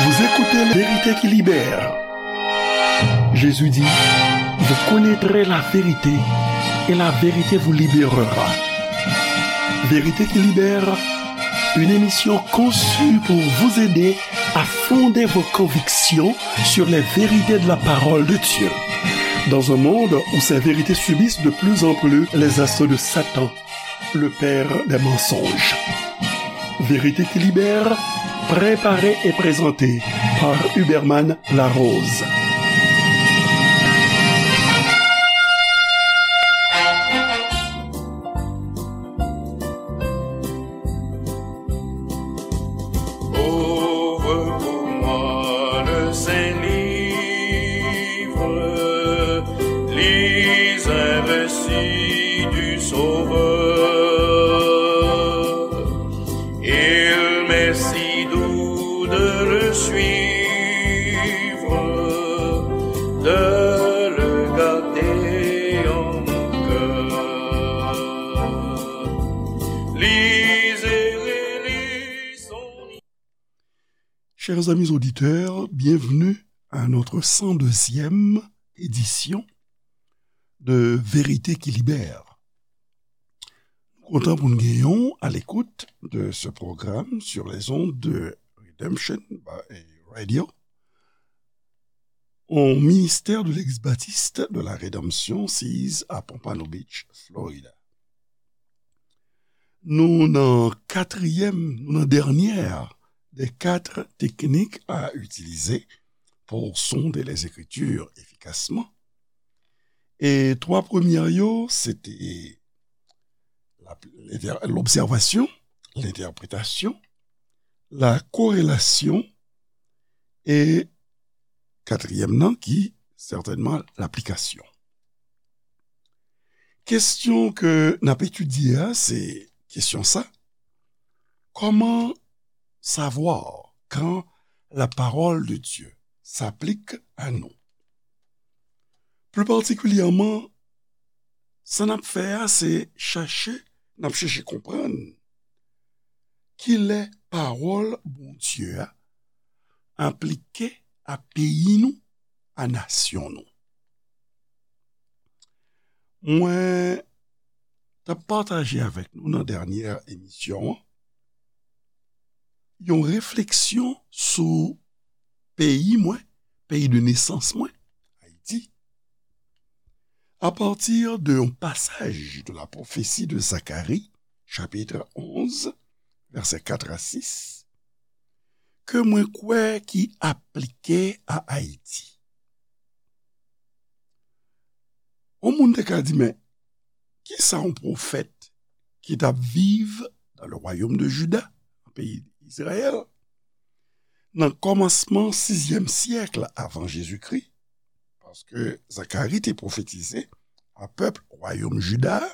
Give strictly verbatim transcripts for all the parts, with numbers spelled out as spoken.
Vous écoutez La Vérité qui libère. Jésus dit, vous connaîtrez la vérité et la vérité vous libérera. Vérité qui libère, une émission conçue pour vous aider à fonder vos convictions sur les vérités de la parole de Dieu. Dans un monde où ces vérités subissent de plus en plus les assauts de Satan, le père des mensonges. Vérité qui libère, préparé et présenté par Huberman Larose. Ouvre pour moi le saint livre, lis un récit du Sauveur. Il m'est si doux de le suivre, de le garder en mon cœur. Lisez, relisez son Chers amis auditeurs, bienvenue à notre cent deuxième édition de Vérité qui libère. Nou kontan pou n genyen w à l'écoute de ce programme sur les ondes de Redemption Radio, au ministère de l'Église baptiste de la Rédemption, sise à Pompano Beach, Florida. Nou nan katriyèm, nou nan dènyè des quatre techniques à utiliser pour sonder les Écritures efficacement. E twa premyè yo, se te la, l'observation, l'interprétation, la corrélation e katriyèm nan ki sètènman laplikasyon. Kesyon ke n ap etidye a, se kesyon sa, comment savoir quand la parole de Dieu s'applique à nous? Plus particulièrement, sa n ap fè a, se chache, n ap chache konprann kilè pawòl Bondye a aplike a peyi nou, a nasyon nou. Mwen t ap pataje avèk nou nan dènyè emisyon an yon refleksyon sou peyi mwen, peyi de nesans mwen, Ayiti, à partir de yon pasaj de la prophétie de Zacharie, chapitre onze, versets quatre à six, ke mwen kwè ki aplike a Ayiti. Yon moun te ka di, men, kisa yon pwofèt ki t ap viv dans le royaume de Juda, nan peyi Izrayèl, nan kòmansman sizyèm syèk avan Jezikri, paske Zakari te pwofetize a pèp wayòm Jida a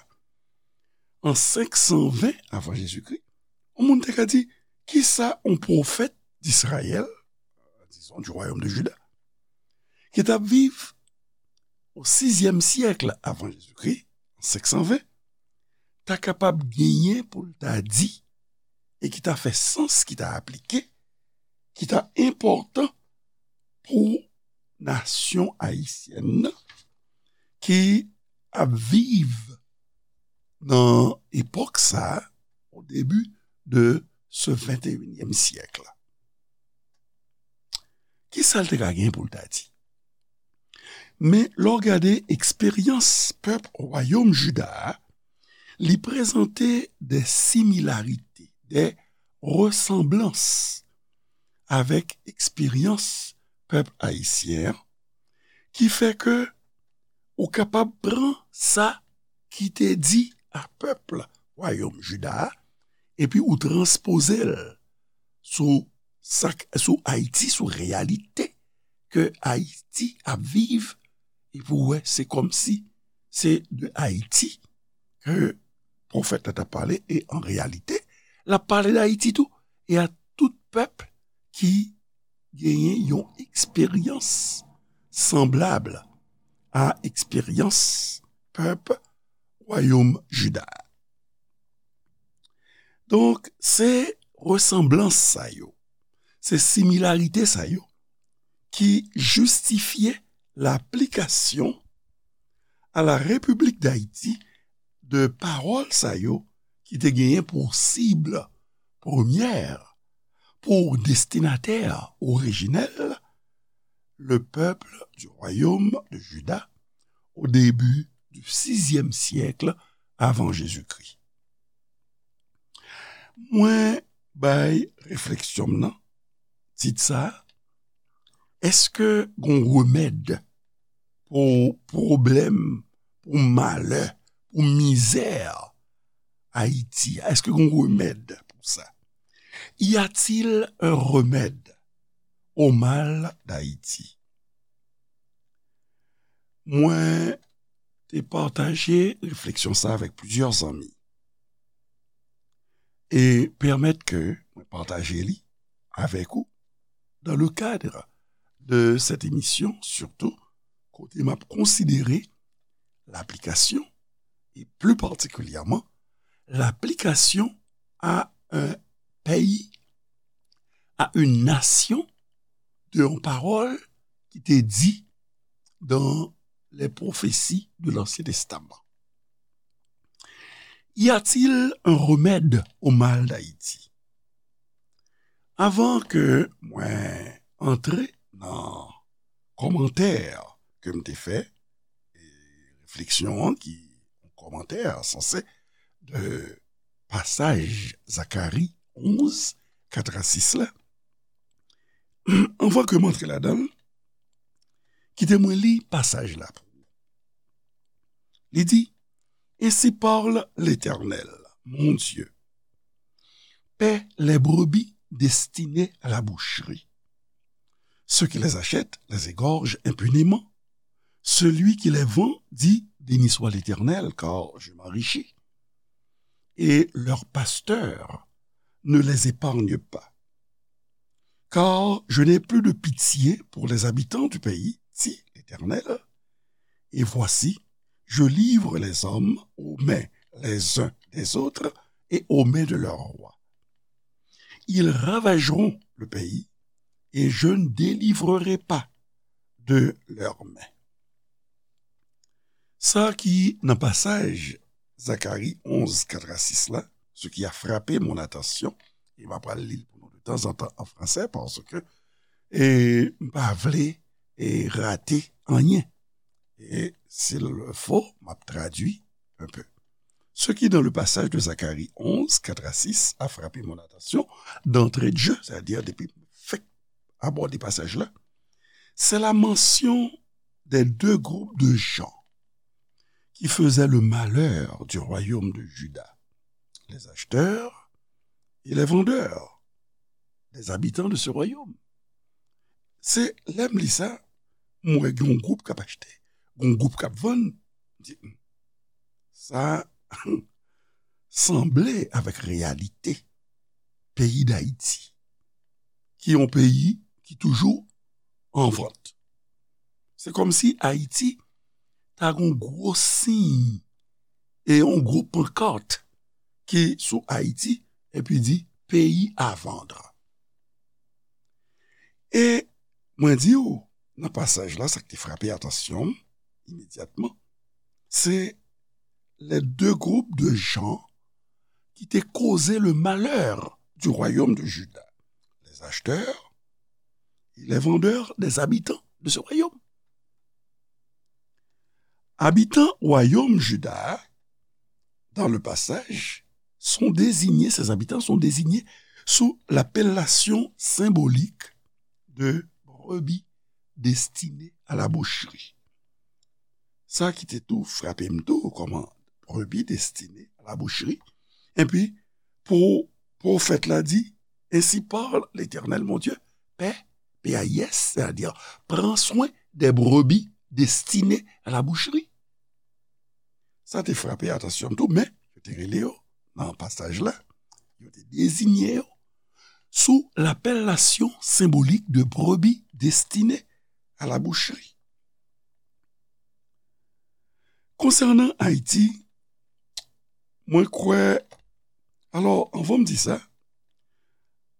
an senk san ven avan Jezikri, yon moun te ka di, kisa yon pwofèt d'Israël, disons, du royaume de Juda, ki t ap viv o sizyèm syèk avan Jezikri, senk san ven, ta kapab genyen pou l ta di, e ki ta fè sans, ki ta aplike, ki ta enpòtan pou nasyon ayisyèn nan, ki ap viv nan epòk sa a, au début de ce vingt et unième siècle. Kisa l te ka gen pou l ta di? Men, lè w gade eksperyans pèp wayòm Jida a, li prezante de similarite, de resanblans avèk eksperyans pèp ayisyen an, ki fè ke ou kapab pran sa ki te di a pèp wayòm Jida a, epi ou transpoze l sou sa k, sou Ayiti, sou reyalite ke Ayiti ap viv, epi w wè se kòmsi se de Ayiti ke pwofèt la t ap pale, e an reyalite, l ap pale d Ayiti tou, e a tout pèp ki genyen yon eksperyans sanblab a eksperyans pèp wayòm Jida a. Donk, se resanblans sa yo, Se similarite sa yo ki jistifye laplikasyon a la Repiblik Dayiti de pawòl sa yo ki te genyen pou sib premyè, pou destinatè orijinèl, le peuple du royaume de Juda au début du sixième siècle avant Jésus-Christ. Mwen bay refleksyon m nan tit sa a, èske gon remèd pou pwoblèm, pou malè, pou mizè Ayiti a? Èske gon remèd pou sa? Y a-t-il un remède au mal d'Haïti? Mwen te pataje refleksyon sa avèk plizyè zanmi e pèmèt ke mwen pataje li avèk ou dans le cadre de cette émission, surtout kote m ap konsidere laplikasyon, et plus particulièrement l'application à un pays, à une nation, de yon pawòl ki te di dans les prophéties de l'Ancien Testament. Y a-t-il un remède au mal d'Haïti? Avan ke mwen antre nan kòmantè ke m te fè, e refleksyon an ki yon kòmantè sanse de pasaj Zakari onz, kat a sis la, anvan ke m antre ladan l, kite mwen li pasaj la pou ou. Li di, Ainsi parle l'Éternel, mon Dieu. Paie les brebis destinées à la boucherie. Ceux qui les achètent les égorgent impunément. Celui qui les vend dit, Béni soit l'Éternel, car je m'enrichis. Et leurs pasteurs ne les épargnent pas. Car je n'ai plus de pitié pour les habitants du pays, dit l'Éternel. Et voici, je livre les hommes aux mains les uns des autres et aux mains de leurs rois. Ils ravageront le pays, et je ne délivrerai pas de leurs mains. Sa ki nan pasaj Zakari onz, kat a sis la, ce qui a frappé mon attention, e m ap pral li l pou nou de tanzantan an fransè, paske e, m pa vle e, rate anyen. Et s'il le faut, m ap tradui un peu. Ce qui, dans le passage de Zacharie onze, quatre à six, a frappé mon attention d'entrée de jeu, c'est-à-dire depuis fèk abòde pasaj la, c'est la mention des deux groupes de gens qui faisaient le malheur du royaume de Juda, les acheteurs et les vendeurs, les habitants de ce royaume. Se lè m li sa, m wè gen yon gwoup k ap achte, gen yon gwoup k ap vann. M di, "Hmm, sa sanble avèk reyalite peyi Dayiti, ki yon peyi ki toujou an vant." Se kòmsi Ayiti ta gen yon gwo siy e yon gwo pankart ki sou Ayiti, epi di, "Pays à vendre." E mwen di w, nan pasaj la, sa k te frape atansyon m imedyatman, se les deux groupes de gens qui te causaient le malheur du royaume de Juda, les acheteurs et les vendeurs des habitants de ce royaume. Abitan wayòm Juda a, dans le passage, sont désignés, ces habitants sont désignés sous l'appellation symbolique de brebis destinées à la boucherie. Sa ki te tou frape m tou, kòman brebis destinées à la boucherie. Epi, pou pwofèt la di, "Ainsi parle l'Éternel mon Dieu, paie, P A I S, c'est-à-dire, prends soin des brebis destinées à la boucherie." Sa te frape atansyon m tou, men yo te rele yo nan pasaj la, yo te deziye yo sou l'appellation symbolique de brebis destinées à la boucherie. Konsènan Ayiti, mwen kwè, alò, anvan m di sa,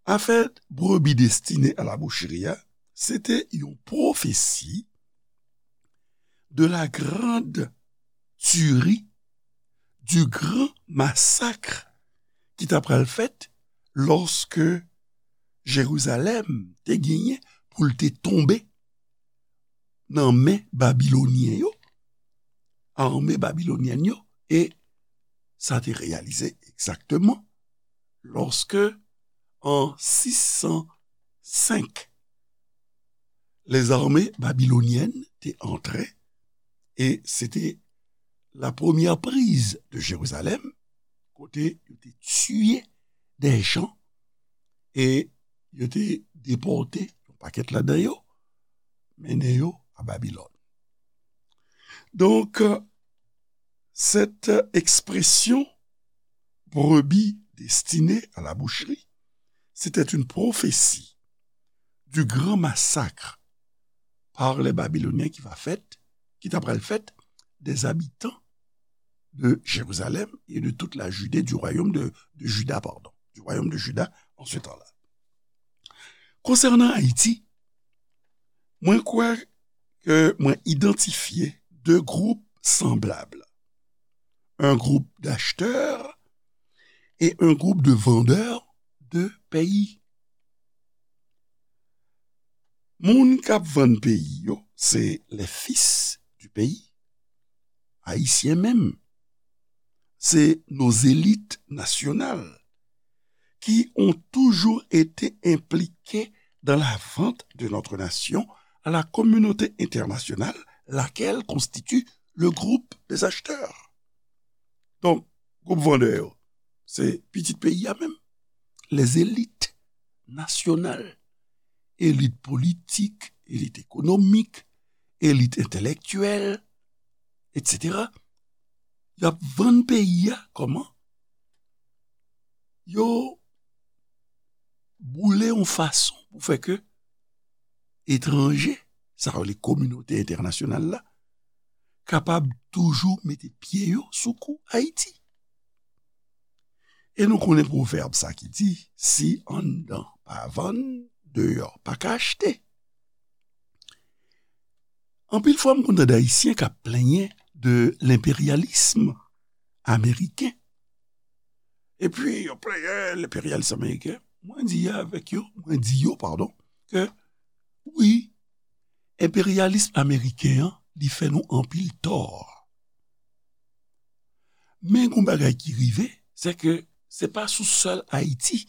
Afè brebi destine a la boucherie a, se te yon pwofesi de la grande tuerie, du grand massacre ki ta pral fèt lòske Jerizalèm te genyen pou l te tonbe nan men Babilonyen yo, ame babilonyèn yo, e sa te reyalize egzakteman lòske, an sis san senk, lèzame babilonyèn te antre, e se te la première prise de Jérusalem, kote yo te tiye de jan e yo te depòte yon pakèt ladan yo, mennen yo a Babilòn. Donk, cette expression brebis destinée à la boucherie, c'était une prophétie du grand massacre par les Babyloniens qui va fèt, ki ta pral fèt des habitants de Jérusalem et de toute la Judée, du royaume de, de Juda, pardon, du royaume de Juda en ce temps-là. Konsènan Ayiti, mwen kwè ke mwen idantifye de gwoup sanblab. Un groupe d'acheteurs et un groupe de vendeurs de pays. Moun k ap vann peyi yo, se les fils du pays, ayisyen menm. C'est nos élites nationales qui ont toujours été impliquées dans la vente de notre nation à la communauté internationale, laquelle constitue le groupe des acheteurs. Donk, gwoup vandè yo, se pitit peyi a menm. Les élites nationales, elit politik, elit ekonomik, elit entèlektyèl, etsetera. Y ap vann peyi a kòman? Yo boule yon fason pou fè ke etranje, sa yo rele kominote entènasyonal la, kapab toujou mete pye yo sou kou Ayiti. E nou konnen pwovèb sa ki di, si anndan pa vann, deyò pa ka achte. Anpil fwa, m konn tande Ayisyen k ap plenyen de lenperyalis ameriken. Epi, yo plenyen lenperyalis ameriken. Mwen di avèk yo, mwen di yo, padon, ke wi, enperyalis ameriken an, li fè nou anpil tò. Men gon bagay ki rive, se ke se pa sou sèl Ayiti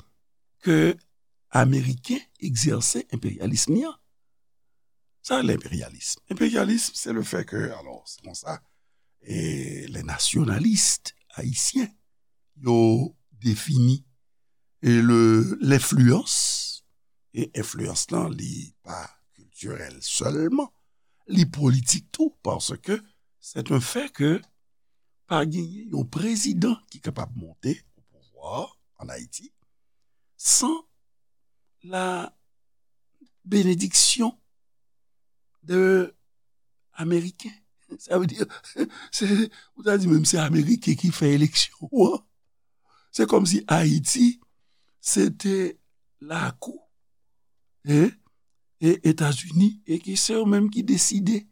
ke Ameriken egzèse enperyalis li an. Sa, lenperyalis. Enperyalis, se le fè ke, alò, se konsa, e, les nationalistes haïtiens, yo defini, e, le, lenfliyans, e enfliyans lan, li pa kiltirèl sèlman, li politik tou, paske c'est un fait que pa genyen yon prezidan ki kapab monte au pouvoir en Haïti sans la bénédiction de Ameriken. Sa vle di, se, ou ta di menm se Ameriken ki fè eleksyon an. Se kòmsi Ayiti, se te lakou, e, e Etazini, e ke se yo menm ki deside,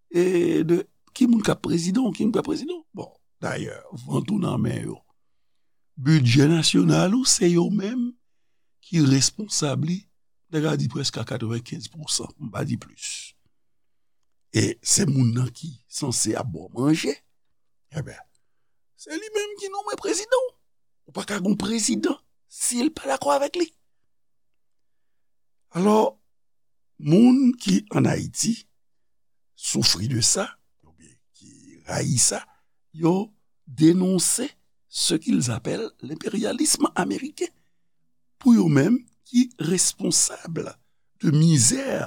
e, de ki moun k ap prezidan ou ki moun k ap prezidan. Bon, dayè, vant ou nan men yo. Bidjè nasyonal ou, se yo menm ki responsab li, m ta ka di prèske a katrevenkenz pousan, pou m pa di plis. E se moun nan ki sanse ap ba w manje. Ebyen, se li menm ki nonmen prezidan w. Ou pa ka gon prezidan si l pa dakò avèk li. Alò, moun ki ann Ayiti soufri de sa, oubyen ki rayi sa, yo denonse ce qu'ils appellent l'impérialisme américain. Pou yo menm, ki responsab de mizè,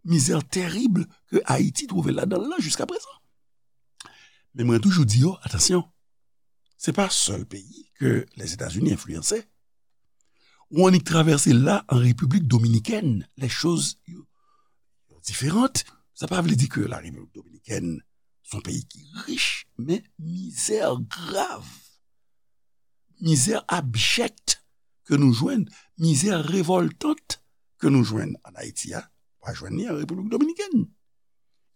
mizè terib ke Ayiti twouve ladan l lan jiska prezan. Men mwen toujou di yo, atansyon, se pa sèl peyi ke Lèzetazini enfliyanse. Ou annik travèse la an Repiblik Dominikèn, lè choz yo, yo diferan. Sa pa vle di ke la Repiblik Dominikèn se yon peyi ki rich, men mizè grav, mizè abjèk ke nou jwenn, mizè revòltant ke nou jwenn ann Ayiti a, pa jwenn li an Repiblik Dominikèn.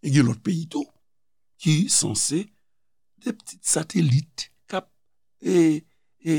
E gen lòt peyi tou ki sanse de ptit satelit k ap e, e,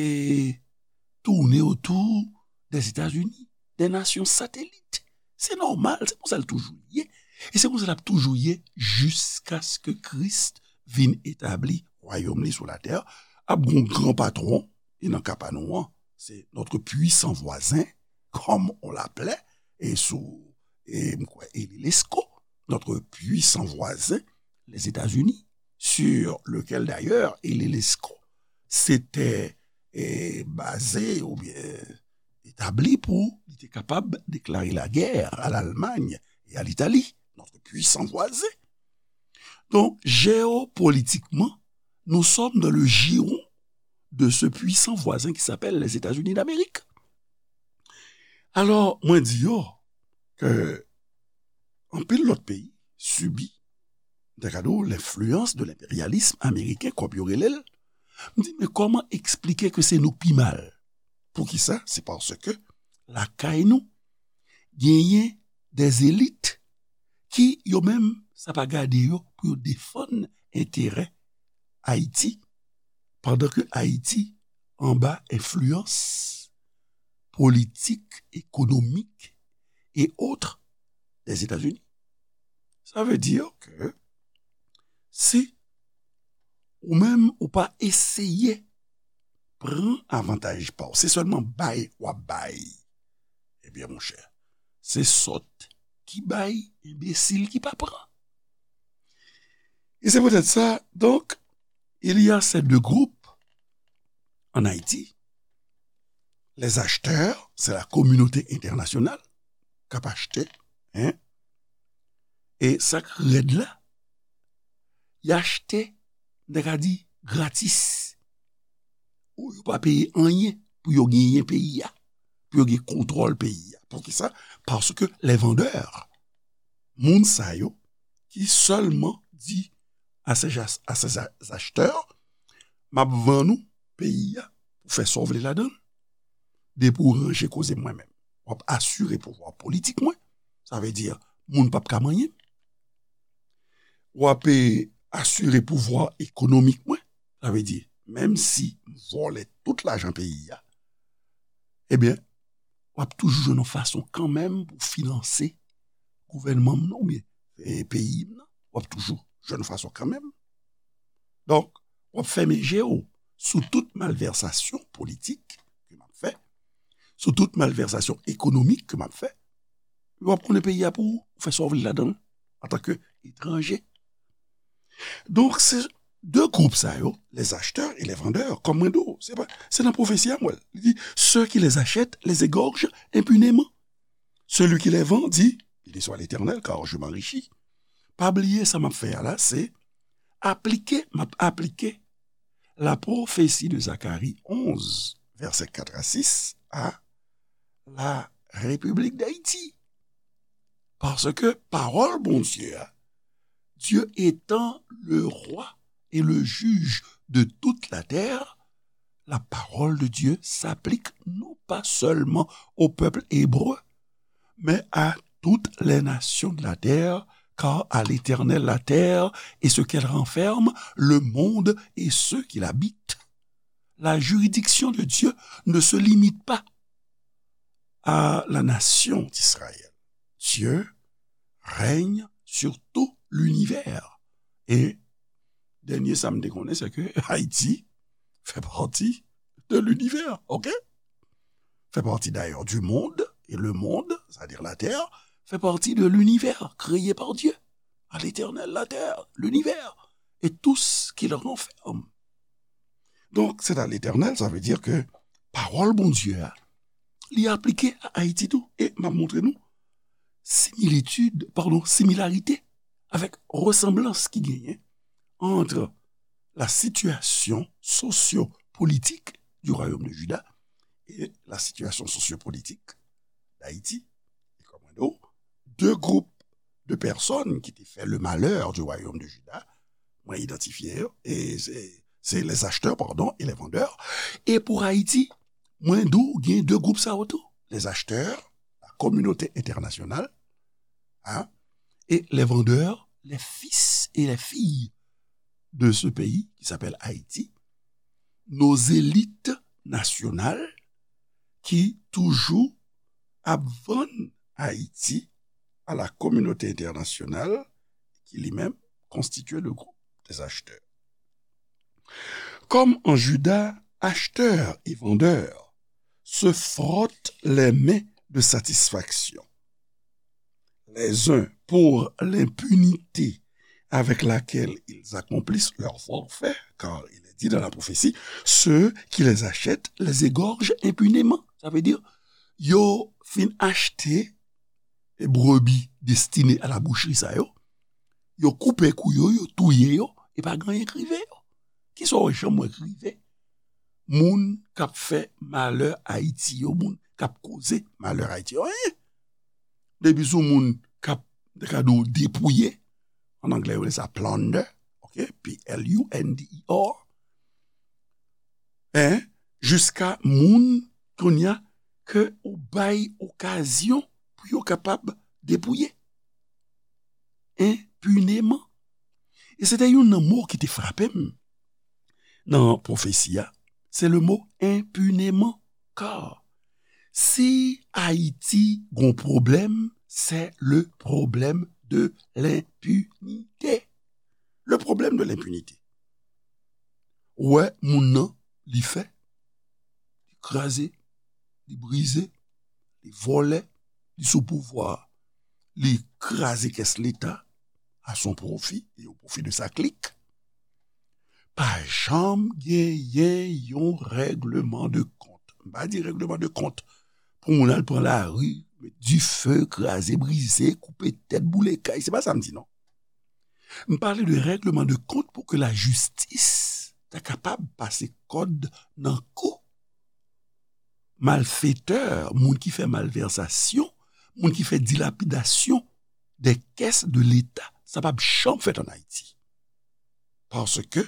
tounen otou Dèzetazini, de nasyon satelit. Se nòmal, se konsa l toujou ye. E se konsa l ap toujou ye jiskaske Kris vin etabli wayòm li sou latè a. Ap gon gran patwon, e nan ka pa nou an, se notre puissant voisin, comme on l'appelait, e sou, e m kwè, Élie Lescot, notre puissant voisin, les États-Unis, sur lequel d'ailleurs Élie Lescot s'était eh, baze oubyen etabli pou li te kapab deklare lagè a Lalmany e a Litali, notre puissant voisin. Donc, géopolitiquement, nous sommes dans le giron de ce puissant voisin qui s'appelle les États-Unis d'Amérique. Alò, mwen di yo ke anpil lòt peyi sibi, m ta ka di w, lenfliyans de lenperyalis ameriken, kòm yo rele l. M di, men kòman eksplike ke se nou k pi mal? Poukisa? Se paske lakay nou, genyen des élites ki, yo menm, sa pa gade yo pou yo defann enterè Ayiti, pandan ke Ayiti anba enfliyans politik, ekonomik e otre des États-Unis. Sa vle di ke si ou menm ou pa eseye pran avantaj pa w, se sèlman bay w ap bay, ebyen, monchè, se sòt ki bay, enbesil ki pa pran. E se poutèt sa, donk, il y a ces deux groupes en Haïti. Les acheteurs, c'est la communauté internationale k ap achte, hein? E sa k rèd la, y achte, m ta ka di, gratis. Ou yo pa peye anyen pou yo genyen peyi a, pou yo gen kontwòl peyi a. Poukisa? Paske les vendeurs, moun sa yo ki sèlman di à ces, à ces acheteurs, m ap vann ou peyi a pou fè sa w vle ladan l. Depi w ranje koze mwen menm, w ap asire pouvwa politik mwen. Sa vle di, moun p ap ka manyen m. W ap, eh, asire pouvwa ekonomik mwen. Sa vle di, menm si m vòlè tout lajan peyi a, ebyen, w ap toujou jwenn yon fason kanmenm pou finanse gouvènman m nan oubyen, eh, peyi m nan. W ap toujou jwenn yon fason kanmenm. Donk, w ap fèmen je w sou tout malvèsasyon politik ke m ap fè, sou tout malvèsasyon ekonomik ke m ap fè. W ap konnen peyi a pou ou, ou fè sa w vle ladan l, antanke etranje. Donk, se de gwoup sa yo, les acheteurs et les vendeurs, kòm mwen di w, se pa, se nan pwofesi a m wè l. Li di, ceux qui les achètent les égorgent impunément. Celui qui les vend dit, béni soit l'Éternel, car je m'enrichis. Pa bliye sa m ap fè a la, se aplike, m ap aplike la prophétie de Zacharie onze, versets quatre à six, à la République d'Haïti. Paske pawòl Bondye a, Dieu étant le roi et le juge de toute la terre, la parole de Dieu s'applique non pas seulement au peuple hébreu, mais à toutes les nations de la terre, car à l'Éternel la terre et ce qu'elle renferme, le monde et ceux qui l'habitent. La juridiction de Dieu ne se limite pas à la nation d'Israël. Dieu règne sur tout l'univers. E dènye sa m te konnen, se ke Ayiti fè pati de l'univers, ok? Fait partie d'ailleurs du monde, et le monde, c'est-à-dire la terre, fait partie de l'univers créé par Dieu. À l'Éternel, la terre, l'univers, et tout ce qu'il renferme. Donk, c'est à l'Éternel, sa vle di ke pawòl Bondye a, li aplike a Ayiti tou. E m ap montre nou similitid, padon, similarite avèk resanblans ki genyen entre la situation socio-politique du royaume de Juda et la situation sociopolitique d'Haïti. E kòm mwen di w, de gwoup de pèsòn ki te fè le malheur du royaume de Juda, mwen idantifye yo, e se, se les acheteurs, pardon, et les vendeurs. E pou Ayiti, Mwen di w gen de gwoup sa yo tou. Les acheteurs, la communauté internationale, hein, et les vendeurs, les fils et les filles de ce pays qui s'appelle Haïti, nos élites nationales qui toujours ap vann Haïti à la communauté internationale qui lui-même constituait le groupe des acheteurs. Comme en Juda, acheteurs et vendeurs se frottent les mains de satisfaction, les uns pour l'impunité avec laquelle ils accomplissent leurs forfaits, car il est dit dans la prophétie, ceux qui les achètent les égorgent impunément. Sa vle di, yo fin achte e brebi destine a la bouchri sa yo, yo koupe kou yo, yo touye yo, e pa gen anyen k rive yo. Kisa w janm wè k rive moun k ap fè malè Ayiti yo, moun k ap koze malè Ayiti yo? Anyen. Depi sou moun k ap, te ka di w, depouye, an anglè yo rele sa plunder, ok, P L U N D E R, en, jiska moun kounye a ke ou bay okazyon pou yo kapab depouye enpineman. E se te youn nan mo ki te frape m nan pwofesi a, se le mo enpineman. Ka si Ayiti gon pwoblèm, se le problème de l'impunité. Le problème de l'impunité. Ou wè, moun nan, li fè, li kraze, li brize, li vòlè, li sou pouvwa, li kraze kès Leta à son profit et au profit de sa clique. Pa janm genyen yon règleman de kont. M pa di règleman de kont pou moun al pran lari, met dife, kraze, brize, koupe tèt, boule kay. Se pa sa m di, non. M pale de règleman de kont pou ke lajistis ta kapab pase kòd nan kou malfetè, moun ki fè malvèsasyon, moun ki fè dilapidasyon de kès de Leta. Sa p ap janm fèt ann Ayiti. Paske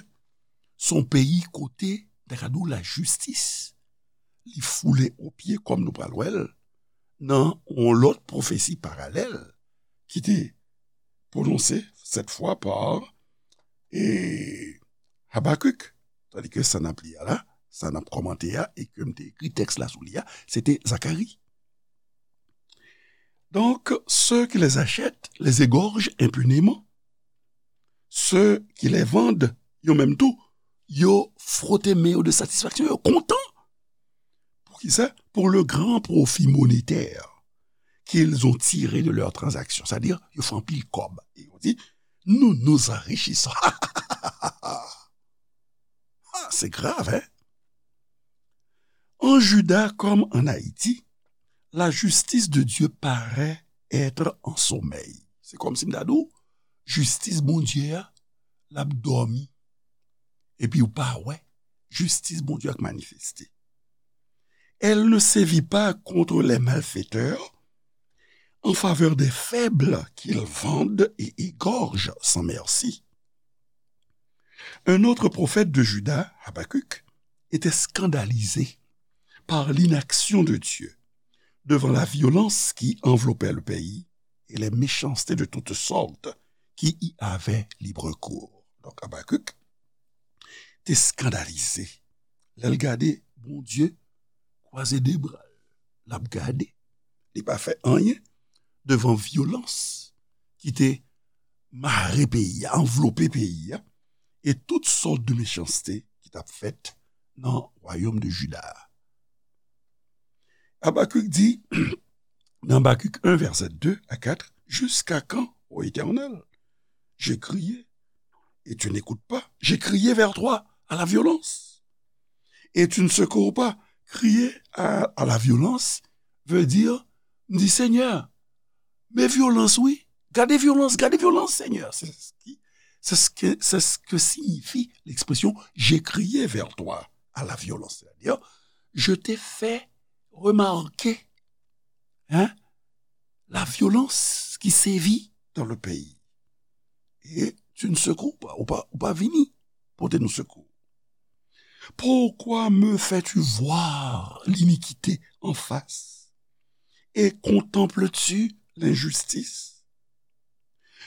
se yon peyi kote, ta ka di w, lajistis, li foule o pye, kòm nou pral wè l, nan yon lòt pwofesi paralèl ki te pwononse, cette fois par, e, Habakuk. Tandis ke sa n ap li a la, sa n ap kòmante a, e ke m te ekri tèks la sou li a, se te Zakari. Donc, ceux qui les achètent les égorgent impunément. Ceux qui les vendent, yo menm tou, yo fwote men yo de satisfaction, yo kontan. Poukisa? Pour le grand profit monétaire qu'ils ont tiré de leurs transactions. C'est-à-dire, yo fè anpil kòb. E yo di, nous nous enrichissons. Ah, c'est grave, hein? En Juda comme en Haïti, la justice de Dieu paraît être en sommeil. Se kòmsi m ta di w, jistis Bondye a, l ap dòmi. Epi ou pa wè jistis Bondye a k manifeste. Elle ne sévit pas contre les malfaiteurs en faveur des faibles qu'ils vendent et égorgent sans merci. Un autre prophète de Juda, Habacuc, était scandalisé par l'inaction de Dieu devant la violence qui enveloppait le pays et les méchancetés de toutes sortes qui y avaient libre cours. Donk, Habacuc te eskandalize lè l gade Bondye kwaze de bra l, l ap gade. Li pa fè anyen devan vyolans ki te mare peyi a, anvlope peyi a, e tout sòt de mechanste ki t ap fèt nan wayòm de Jida a. Habakuk di, dans Habacuc un, versets deux à quatre, jusqu'à quand, ô Éternel, j'ai crié et tu n'écoutes pas, j'ai crié vers toi à la violence et tu ne secours pas. Crier à, à la violence veut dire, m di, Senyè, men vyolans, wi. Gade vyolans, gade vyolans, Senyè. C'est ce qui, c'est ce que, c'est ce que signifie l'expression j'ai crié vers toi à la violence. C'est-à-dire, je t'ai fait remarquer, hein, la violence qui sévit dans le pays. Et tu ne secours pas, ou pa, ou pa vini pote nou sekou. Pourquoi me fais-tu voir l'iniquité en face et contemples-tu l'injustice?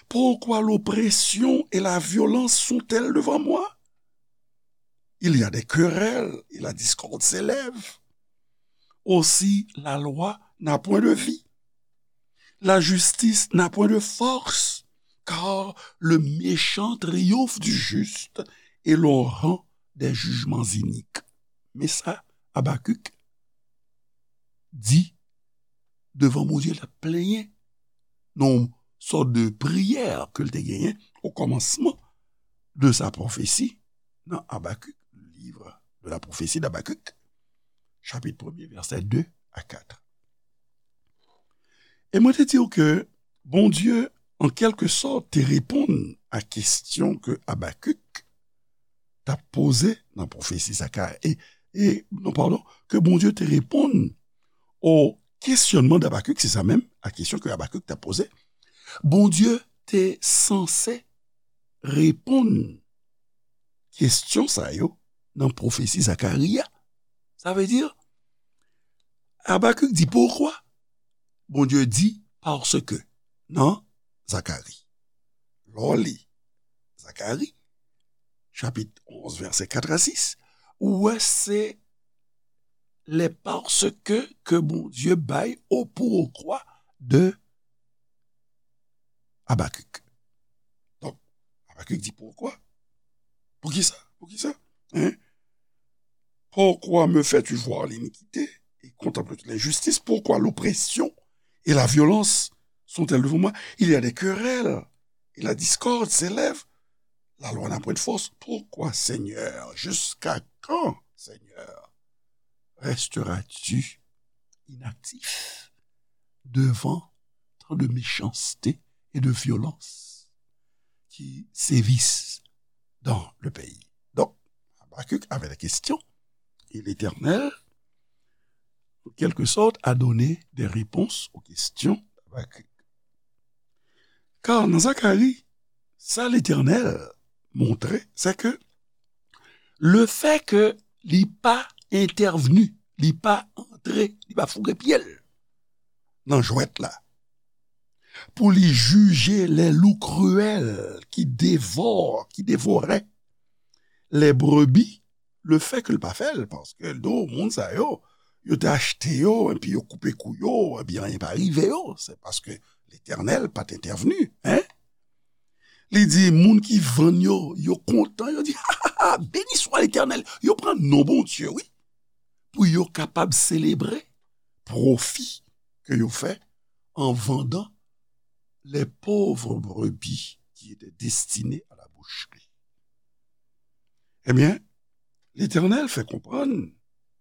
Pourquoi l'oppression et la violence sont-elles devant moi? Il y a des querelles et la discorde s'élève. Aussi la loi n'a point de vie. La justice n'a point de force, car le méchant triomphe du juste et l'on rend des jugements iniques. Men sa Abakik di devan Bondye, l ap plenyen nan yon sòt de priyè ke l te genyen o kòmansman de sa pwofesi nan Abakik, livre de la prophétie d'Habacuc, chapit premye, vèsè de a kat. E mwen te di w ke Bondye, an kèlke sòt, te reponn a kesyon ke Abakik t ap poze nan pwofesi Zakari, e, e, non, padon, ke Bondye te reponn o kesyònman d Abakik, se sa menm, a kesyon ke Abakik t ap poze. Bondye te sanse reponn kesyon sa yo nan pwofesi Zakari a. Sa vle di, Abakik di, pourquoi? Bondye di, parce que, nan Zakari. Lè w li Zakari, chapit onz, vèsè kat a sis, ou wè se les parce que ke Bondye bay o pourquoi de Abakik. Donk, Abakik di, pourquoi? Poukisa? Poukisa? Hein? Pourquoi me fais-tu voir l'iniquité et contemples-tu l'injustice? Pourquoi l'oppression et la violence sont-elles devant moi? Il y a des querelles et la discorde s'élève. La loi n'a point de force. Pourquoi, Seigneur, jusqu'à quand, Seigneur, resteras-tu inactif devant tant de méchanceté et de violence qui sévissent dans le pays? Donc, Habacuc avait des questions, et l'Éternel, en quelque sorte, a donné des réponses aux questions d'Habacuc. Kar nan Zakari, sa Letènèl montre, se ke lefètke li pa entèvni, li pa antre, li pa foure pye l nan jwèt la, pou li jije les loups cruels qui dévorent, qui dévoraient les brebis, lefètke l pa fè l, paske l di w, moun sa yo, yo te achte yo, epi yo koupe kou yo, epi anyen pa rive yo, se paske Letènèl pa t entèvni, en. Li di, moun ki vann yo, yo kontan, yo di, ha, ha, ha, béni soit l'Éternel. Yo pran non Bondye, wi, pou yo kapab selebre pwofi ke yo fè en vendant les pauvres brebis qui étaient destinées à la boucherie. Ebyen, Letènèl fè konprann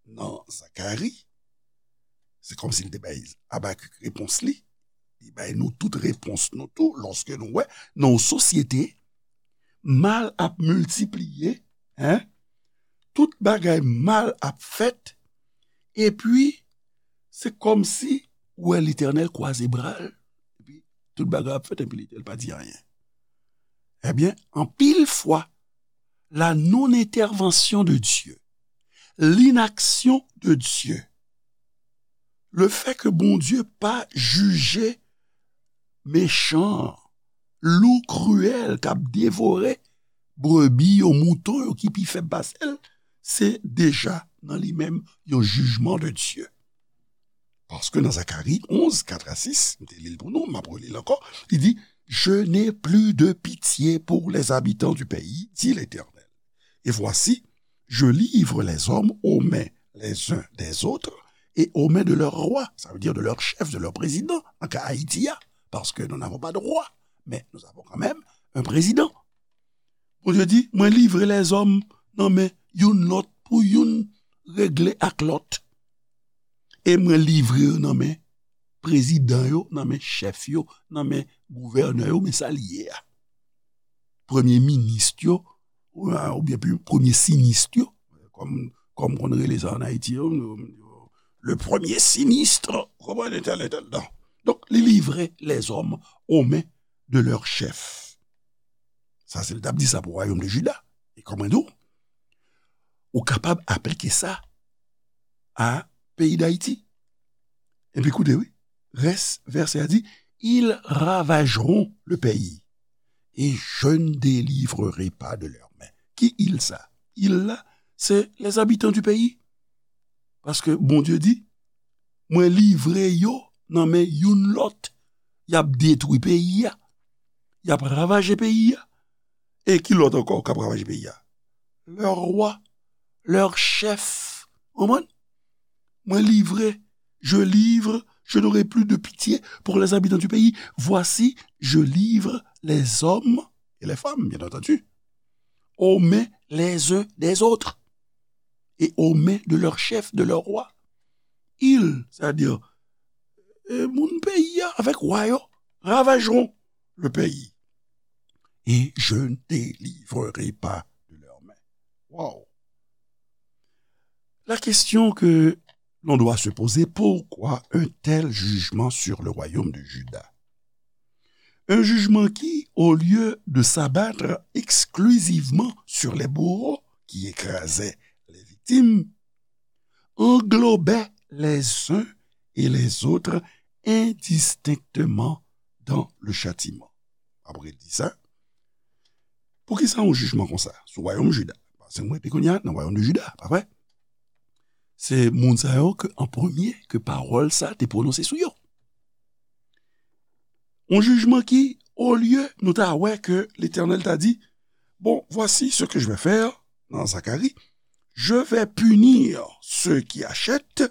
nan Zakari, se kòmsi li te bay Abakik repons li, li bay nou tout repons nou tou, lòske nou wè nan yon sosyete, mal ap miltipliye, en, tout bagay mal ap fèt, epi se kòmsi ou wè Letènèl kwaze bra l, epi tout bagay ap fèt, epi Letènèl pa di anyen. Ebyen, anpil fwa, la non-intervention de Dieu, l'inaction de Dieu, le fait que Bondye pa jije mechan, lou kriyèl k ap devore brebi yo, mouton yo ki pi fèb pase l, se deja nan li menm yon jijman de Dye. Paske nan Zakari onz, kat a sis, m te li l pou nou, m ap reli l ankò, li di, je n'ai plus de pitié pour les habitants du pays, dit l'Éternel. Et voici, je livre les hommes aux mains les uns des autres et aux mains de leurs rois, ça veut dire de leur chef, de leur président, nan ka Ayiti a, paske nous n'avons pas de roi, mais nous avons quand même un président. Bondye di, mwen livre lèzòm nan men youn lòt pou youn regle ak lòt. E mwen livre yo nan men prezidan yo, nan men chèf yo, nan men gouvènè yo, men sa li ye a. Premye minis yo, oubyen premye sinis yo, kòm, kòm konn rele sa an Ayiti, yo, le premier sinistre, ou konprann, entèl, entèl, non. Donk, li livre lèzòm aux mains de leurs chefs. Sa se l t ap di sa pou wayòm de Jida. E kòman di w? ou kapab aplike sa a peyi Dayiti. Epi koute, wi, rès vèsè a di, ils ravageront le pays et je ne délivrerai pas de leurs mains. Ki ils sa? Ils la, se les habitants du pays. Paske Bondye di, mwen livre yo nan men youn lòt. Y ap detwi peyi a. Y ap ravaje peyi a. E ki lòt ankò k ap ravaje peyi a? Leur roi, leur chef. Konprann? Mwen livre, je livre, je n'aurai plus de pitié pour les habitants du pays. Voici, je livre les hommes et les femmes, bien entendu, aux mains les uns des autres et aux mains de leur chef, de leur roi. Ils, c'est-à-dire, euh, moun peyi a avèk wa yo, ravageront le pays. Et je ne délivrerai pas de leurs mains. Wow. La question que l'on doit se poser, pourquoi un tel jugement sur le royaume de Juda? Un jugement qui, au lieu de s'abattre exclusivement sur les bourreaux qui écrasaient les victimes, englobait les uns et les autres indistinctement dans le châtiment. Apre l di sa, poukisa yon jijman konsa sou wayòm Jida? Paske mwen te kounye a nan wayòm de Jida, pa vre? Se moun sa yo ke an premye ke pawòl sa te pwononse sou yo. Yon jijman ki, olye nou ta wè ke Letènèl ta di, bon, voici ce que je vais faire, nan Zacharie, je vais punir ceux qui achètent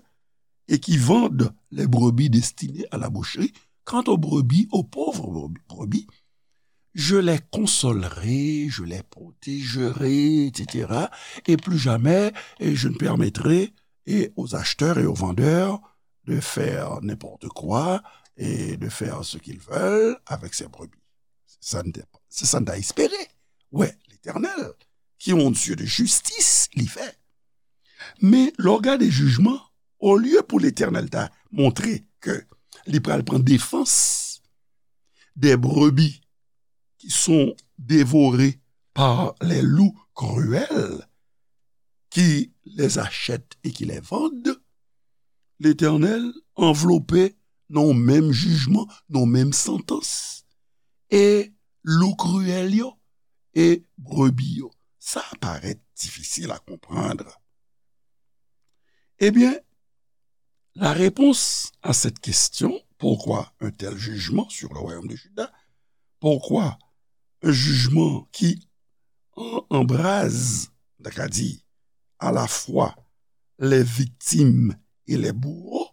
et qui vendent les brebis destinées à la boucherie. Quant aux brebis, aux pauvres brebis, je les consolerai, je les protégerai, et cetera. Et plus jamais, et je ne permettrai et aux acheteurs et aux vendeurs de faire n'importe quoi et de faire ce qu'ils veulent avec ces brebis. Se sa n te, se sa n ta espere. Wè, Letènèl, ki yon Dye de jistis, li fè. Men, lè w gade jijman, olye pou Letènèl ta montre ke li pral pran defans des brebis qui sont dévorées par les loups cruels qui les achètent et qui les vendent, Letènèl anvlope nan yon menm jijman, nan yon menm santans. E lou kriyèl yo, e brebi yo. Sa parèt difisil a konprann. Ebyen, la réponse à cette question, pourquoi un tel jugement sur le royaume de Juda? Pourquoi un jugement qui en-, embrase, n ta ka di, à la fois les victimes et les bourreaux?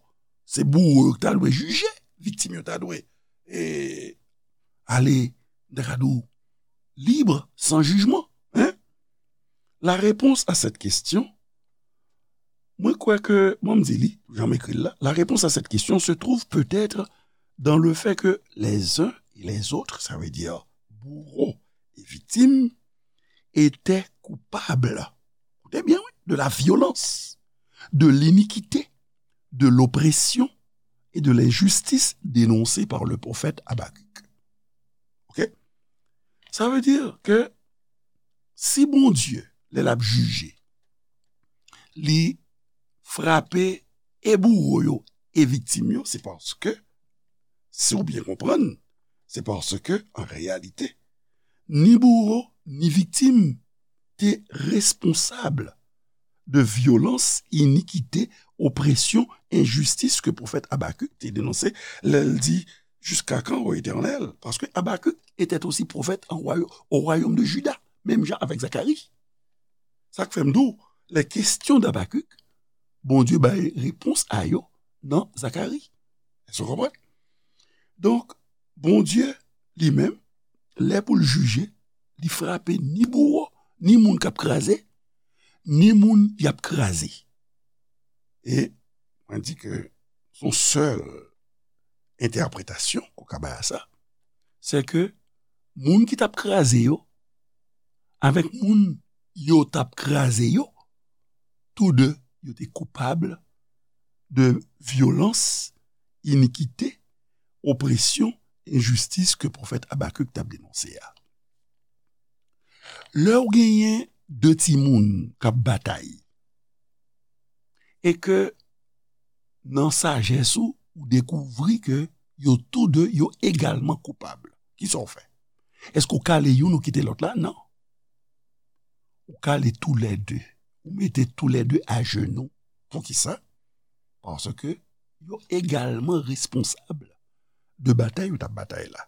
Se bouwo yo ki ta dwe jije, viktim yo ta dwe, e, ale, n ta ka di w, libre, sans jugement, hein? La réponse à cette question, mwen kwè ke, mwen m di li, jan m ekri l la, la réponse à cette question se trouve peut-être dans le fait que les uns et les autres, ça veut dire bourreaux et victimes, étaient coupables, écoutez bien, oui, de la violence, de l'iniquité, de l'oppression et de l'injustice dénoncées par le prophète Habacuc. OK? Sa vle di ke si Bondye, lè l ap jije, li frape e bouwo yo e viktim yo, se paske, si w byen konprann, se paske, an reyalite, ni bouwo, ni viktim te responsab de vyolans, inikite, opresyon, enjistis ke pwofèt Abakik te denonse lè l di, Jusqu'à quand, ô Éternel? Parce que Habacuc était aussi prophète en roya-, au royaume de Juda, menm jan avèk Zakari. Sa k fè m di w, les questions d'Habacuc, Bondye bay repons a yo nan Zakari. Èske w konprann? Donk, Bondye, li menm, lè pou l jije, li frape ni bouwo, ni moun k ap kraze, ni moun y ap kraze. E mwen di ke se yon sèl entèpretasyon ke w ka bay a sa, se ke moun ki t ap kraze yo, avèk moun yo t ap kraze yo, tou de, yo te koupab de vyolans, inikite, opresyon, enjistis ke pwofèt Abakik t ap denonse a. Lè w genyen de timoun k ap batay, e ke nan sajès ou, ou dekouvri ke yo tou de, yo egalman koupab. Kisa w fè? Èske w kale youn ou kite lòt la? Non. Ou kale toulède. Ou mete toulède ajenou. Poukisa? Paske yo egalman responsab de batay yo t ap batay la.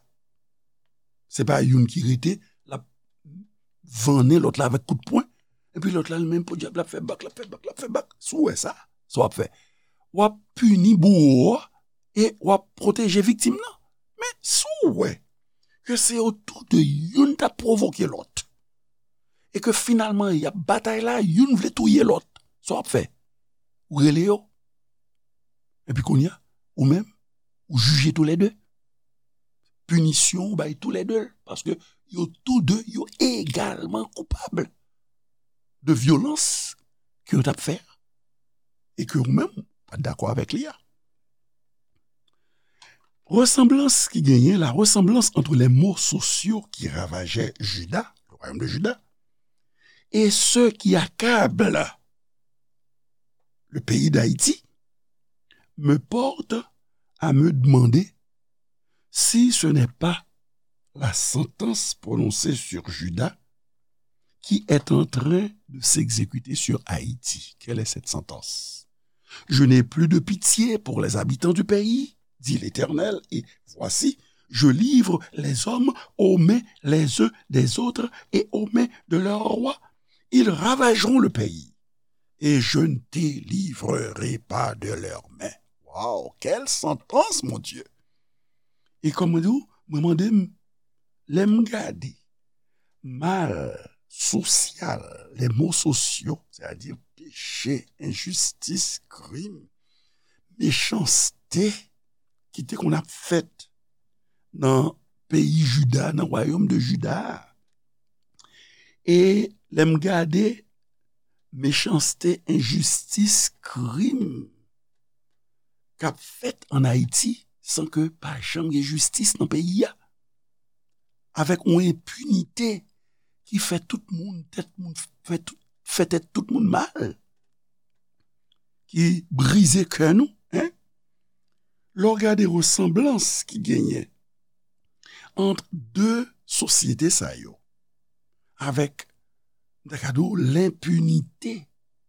Se pa youn ki rete, l ap vannen lòt la avèk kout pwen. Epi lòt la, li menm, podyab, l ap fè bak, l ap fè bak, l ap fè bak. Si w wè sa, sa w ap fè? W ap pini bouwo a e w ap pwoteje viktim nan. Men si w wè ke se yo tou de youn t ap pwovoke lòt, e ke finalman y ap batay la, youn vle touye lòt, sa w ap fè? Ou rele yo. Epi kounye a, ou menm, ou jije toulède. Pinisyon ou bay toulède, paske yo tou de, yo egalman koupab de vyolans ke yo t ap fè a, e ke ou menm, ou pa t dakò avèk li a. Ressemblance ki genyen, la ressemblance entre les maux sociaux qui ravageaient Juda, le royaume de Juda, et ceux qui accablent le pays d'Haïti, me porte à me demander si ce n'est pas la sentence prononcée sur Juda qui est en train de s'exécuter sur Haïti. Quelle est cette sentence? Je n'ai plus de pitié pour les habitants du pays, dit l'Éternel, et voici, je livre les hommes aux mains les uns des autres et aux mains de leurs rois. Ils ravageront le pays, et je ne délivrerai pas de leurs mains. Wow, quelle sentence, mon Dieu! E kòman di w, mwen mande m, lè m gade mal sosyal, les maux sociaux, sètadi peche, enjistis, krim, mechanste ki te konn ap fèt nan peyi Jida, nan wayòm de Jida a. E lè m gade mechanste, enjistis, krim k ap fèt ann Ayiti san ke pa janm gen jistis nan peyi a, avèk yon enpinite ki fè tout moun, tèt moun, fè tout, fè tèt tout moun mal, ki brize kè nou, en? Lè w gade resanblans ki genyen ant de sosyete sa yo, avèk, m ta ka di w, lenpinite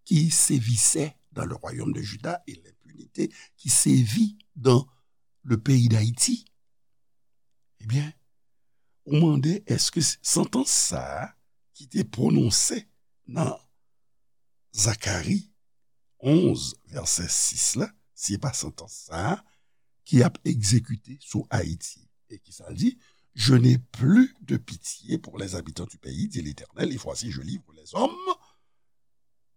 ki sevisè dans le royaume de Juda et lenpinite ki sevi dans le pays d'Haïti, ebyen, ou mande èske santans sa a ki te pwononse nan Zakari onz, vèsè sis la, si se pa santans sa a ki ap egzekite sou Ayiti. E ki sa l di? Je n'ai plus de pitié pour les habitants du pays, dit l'Éternel, et voici, je livre les hommes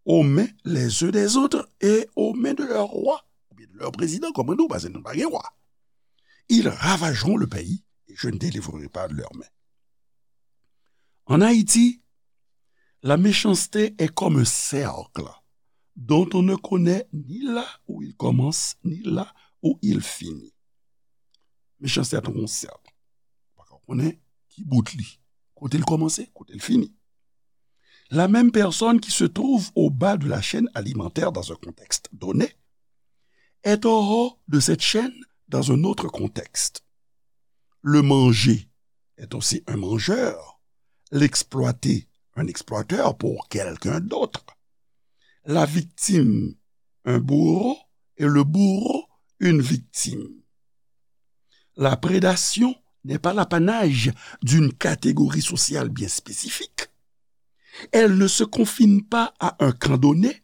aux mains les uns des autres et aux mains de leur roi, oubyen de leur président, kòm nou, paske nou pa gen wa. Ils ravageront le pays et je ne délivrerai pas de leurs mains. En Haïti, la méchanceté est comme un cercle dont on ne connaît ni là où il commence, ni là où il finit. Mechanste a tankou yon sèk. Ou pa ka konnen ki bout li, kote l kòmanse, kote l fini. La même personne qui se trouve au bas de la chaîne alimentaire dans un contexte donné est au haut de cette chaîne dans un autre contexte. Le mangé est aussi un mangeur, l'exploité un exploiteur pour quelqu'un d'autre, la victime un bourreau et le bourreau une victime. La prédation n'est pas l'apanage d'une catégorie sociale bien spécifique. Elle ne se confine pas à un camp donné,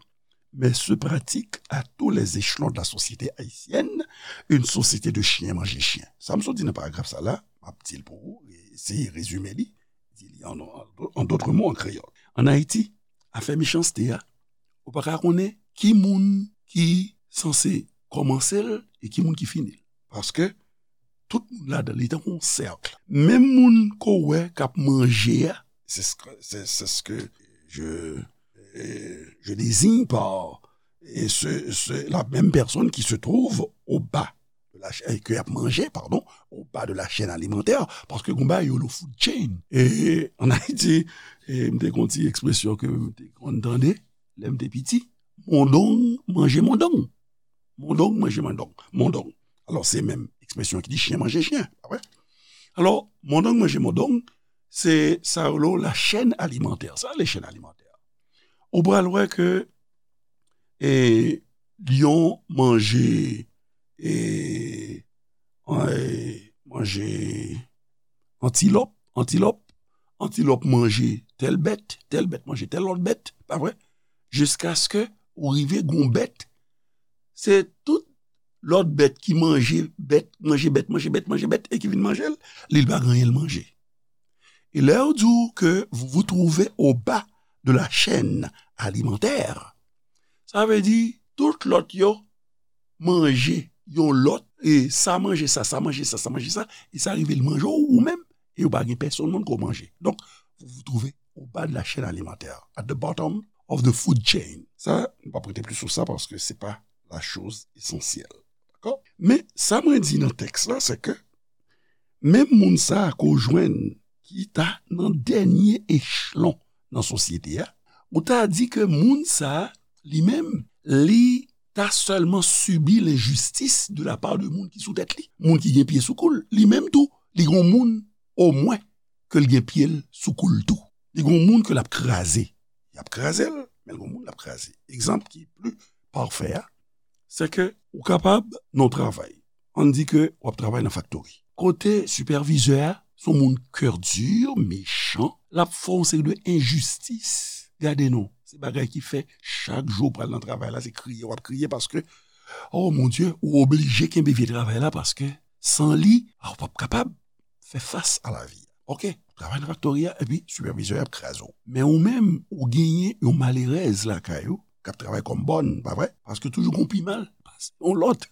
mais se pratique à tous les échelons de la société haïtienne, une société de chiens mangé chien. Sa m sot di nan paragraf sa la, m ap di l pou ou, eseye rezime li, di li an, an, an dòt mo an kreyòl. Ann Ayiti, afè mechanste a, ou pa ka konnen ki moun ki sanse kòmanse l e ki moun ki fini l. Paske tout moun ladan li tankou yon sèk. Menm moun ke w wè k ap manje a, c'est ce que, c'est, c'est ce que je, euh, je désigne par, et ce, ce, la même personne qui se trouve au bas de la chaîne, ke y ap manje, pardon, au bas de la chaîne alimentaire, paske gon bagay yo rele food chain. E ann Ayiti, e m te gon ti ekspresyon ke m te konn tande, lè m te piti, Mondong manje mondong. Mondong manje mondong. Mondong. Alò, se menm ekspresyon ki di chen manje chen, pa vre? Alò, mondong manje mondong, se sa yo rele la chaîne alimentaire. Sa, le chaîne alimentaire. Ou pral wè ke e, lyon manje, e, e, manje antilòp, antilòp, antilòp manje tèl bèt, tèl bèt manje tèl lòt bèt, pa vre? Jiskaske ou rive gon bèt, se tout lòt bèt ki manje bèt, manje bèt, manje bèt, manje bèt, e ki vin manje l, li pa gen anyen l manje. E lè yo di w ke vous vous trouvez au bas de la chaîne alimentaire, sa vle di tout lòt yo manje yon lòt, e sa manje sa, sa manje sa, sa manje sa, e sa rive l manje w ou menm, e yo pa gen pèsonn moun ko manje. Donk, vous vous trouvez au bas de la chaîne alimentaire, at the bottom of the food chain. Sa, nou pa prete plis sou sa paske se pa la chose essentielle. Dakò? Men, sa mwen di nan tèks la, se ke menm moun sa a ke w jwenn ki ta nan dènye echelon nan sosyete a, ou ta di ke moun sa a, li menm, li ta sèlman sibi lenjistis de la part de moun ki sou tèt li. Moun ki gen pye sou kou l, li menm tou, li gon moun omwen ke l gen pye l sou kou l tou. Li gon moun ke l ap kraze. Y ap kraze l, men l gon moun l ap kraze. Egzanp ki pli pafè a, se ke ou kapab nan yon travay. Ann di ke w ap travay nan faktori. Kote sipèvizè a, se yon moun kè di, mechan, l ap fè yon seri de enjistis. Gade non, se bagay ki fè chak jou w pral nan travay la, se kriye w ap kriye paske, oh mon Dieu, ou oblije kenbe vye travay la paske san li, ah, ou p ap kapab fè fas a lavi a. Oke, travay nan faktori a, epi sipèvizè a ap kraze w. Men ou menm, ou genyen yon malerèz lakay ou, k ap travay kòm bòn, pa vre? Paske toujou gon pi mal pase yon lòt.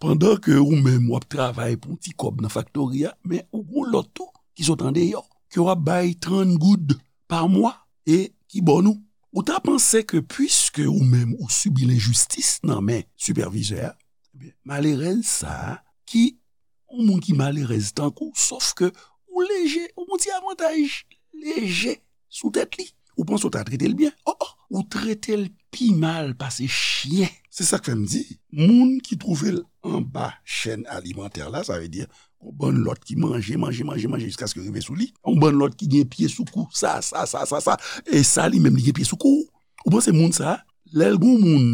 Pandan ke ou menm w ap travay pou yon ti kòb nan faktori a, men ou gon lòt tou ki sot andeyò, ke w ap bay trant goud pa mwa e ki bòn ou. Ou ta panse ke piske ou menm ou sibi lenjistis nan men sipèvizè a, ebyen, malerèz sa a ki yon moun ki malerèz tankou, sòf ke ou leje, ou gon ti avantaj leje sou tèt li. Ou panse w ta trete l byen? Oh, oh, ou trete l pi mal pase chyen. Se sa k fè m di, moun ki twouve l anba chèn alimantè la, sa vle di, yon bann lòt ki manje, manje, manje, manje, jiskaske rive sou li. Yon bann lòt ki gen pye sou kou, sa, sa, sa, sa, sa. E sa, li menm, li gen pye sou kou. Ou panse moun sa, lè l gon moun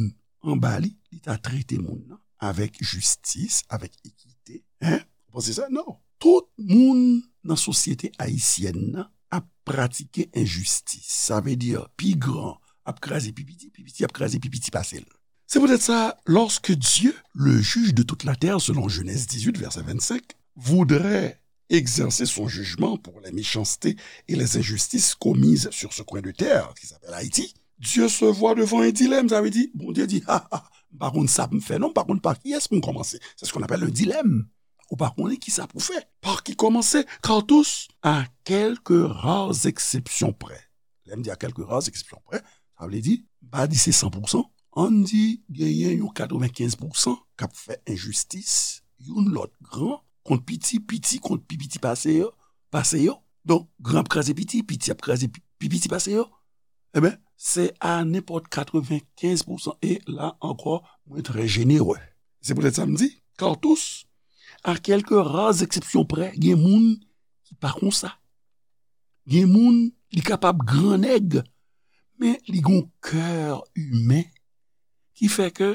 anba li, li ta trete moun nan avèk jistis, avèk ekite. Hein? Ou panse sa? Non. Tout moun nan sosyete ayisyèn nan ap pratike enjistis. Sa vle di, pi gran ap kraze pi piti, pi piti ap kraze pi piti pase l. C'est peut-être ça, lorsque Dieu, le juge de toute la terre, selon Genèse dix-huit, verset vingt-cinq, voudrait exercer son jugement pour les méchancetés et les injustices commises sur ce coin de terre qui s'appelle Haïti, Dieu se voit devant un dilemme, sa vle di, Bondye di, ha, ha, m pa konn sa pou m fè non, m pa konn pa kiyès pou m kòmanse. C'est ce qu'on appelle un dilemme. Ou pa konnen ki sa pou fè. Par qui commencer? Car tous, à quelques rares exceptions près. Lè m di à quelques rares exceptions près, sa vle di, m pa di se san pou san, ann di genyen yon katrevenkenz pou san k ap fè enjistis, youn lòt gran, kont piti, piti kont pi piti pase yo, pase yo. Donk, gran ap kraze piti, piti ap kraze pi, pi piti pase yo. Ebyen, se a nenpòt katrevenkenz pou san. E la ankò, mwen trè jenere. Se poutèt sa m di, car tous, à quelques rares exceptions près, gen moun ki pa konsa. Gen moun, li kapab gran nèg, men li gon kè imen ki fè ke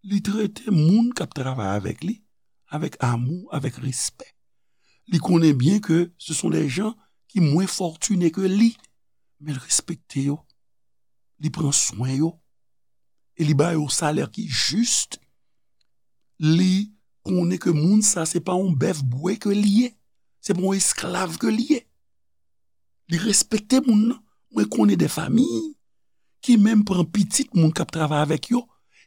li trete moun k ap travay avèk li avèk amou, avèk respè. Li konnen byen ke ce sont des gens ki mwen fòtine ke li, men l respekte yo, li pran swen yo, e li ba yo salè ki jis. Li konnen ke moun sa se pa yon bèf bwè ke li ye, se pa yon esklav ke li ye. Li respekte moun nan. Mwen konnen de fanmi ki menm pran pitit moun k ap travay avèk yo,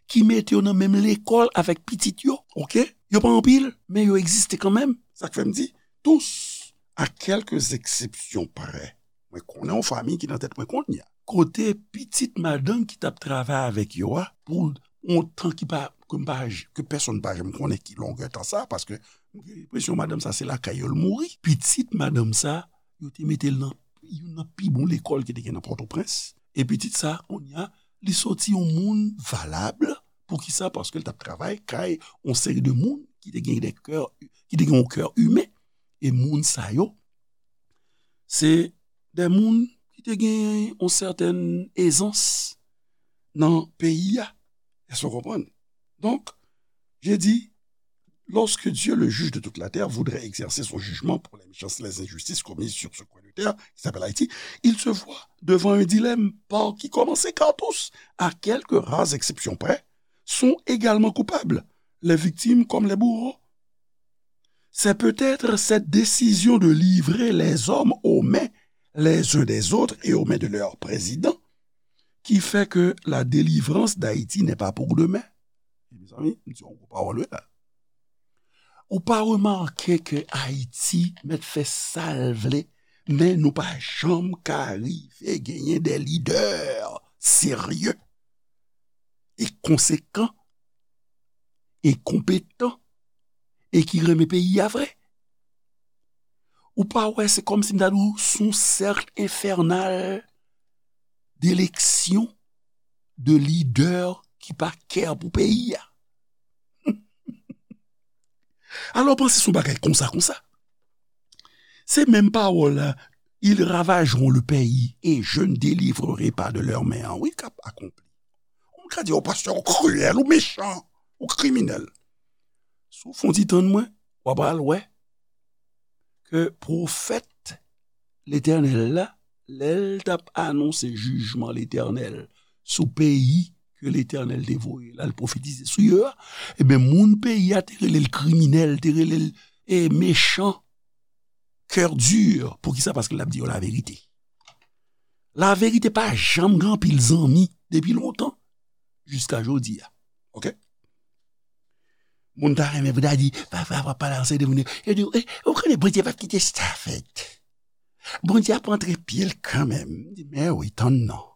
ki mete yo nan menm lekòl avèk pitit yo, oke? Yo pa anpil, men yo egziste kanmenm. Sa k fè m di, tous, à quelques exceptions près. Mwen konnen yon fanmi ki nan tèt mwen kounye a. Kote pitit madanm ki t ap travay avèk yo a, pou yon tan ki pa, ke m pa, ke pèsonn pa janm konnen ki longè tan sa, paske m gen enpresyon madanm sa se lakay yo l mouri. Pitit madanm sa, yo te mete l nan youn nan pi bon lekòl ki te gen nan Pòtoprens. E pitit sa, kounye a, li soti yon moun valab. Poukisa? Paske l t ap travay kay yon seri de moun ki te gen de kè, ki te gen yon kè imen. E moun sa yo, se de moun ki te gen yon sètèn ezans nan peyi a. Èske w konprann? Donk, je dis, lorsque Dieu, le juge de toute la terre, voudrait exercer son jugement pour les méchances, les injustices commises sur ce coin de terre qui s'appelle Haïti, il se voit devant un dilemme par qui commencer, car tous, à quelques rares exceptions près, sont également coupables, les victimes comme les bourreaux. C'est peut-être cette décision de livrer les hommes aux mains les uns des autres et aux mains de leur président qui fait que la délivrance d'Haïti n'est pas pour demain. Mezanmi, m di yon gwo pawòl wi la. Ou pa remake ke Ayiti mèt fè sa l vle, men nou pa janm ka rive genyen de lidè serye e konsekan e konpetan e ki renmen peyi a vre. Ou pa wè, se kòmsi m ta di w, se yon sèk enfènal d'eleksyon de lidè ki pa kè pou peyi a. Alò, panse se yon bagay konsa, konsa. Se menm pawòl la, ils ravageront le pays et je ne délivrerai pas de leurs mains. Wi, k ap akonpli. Ou ka di, o pastè, ou kriyèl, ou mechan, ou kriminèl. Si w fè yon ti tann mwen, w ap al wè ke pwofèt Letènèl la, lè l t ap anonse jijman Letènèl sou peyi ke Letènèl te voye l al pwofetize sou yo a, ebyen, moun peyi a te rele l kriminèl, te rele l, e, mechan, kè di. Poukisa? Paske l ap di yo laverite. Laverite pa janm gen anpil zanmi depi lontan jiska jodi a. Oke? Moun ta renmen pou ta di, pa, pa, pa, pa pale ansanm de moun yo. Yo di, e, ou konnen Bondye p ap kite sa fèt. Bondye ap antre pye l kanmenm. M di, men wi, tann non.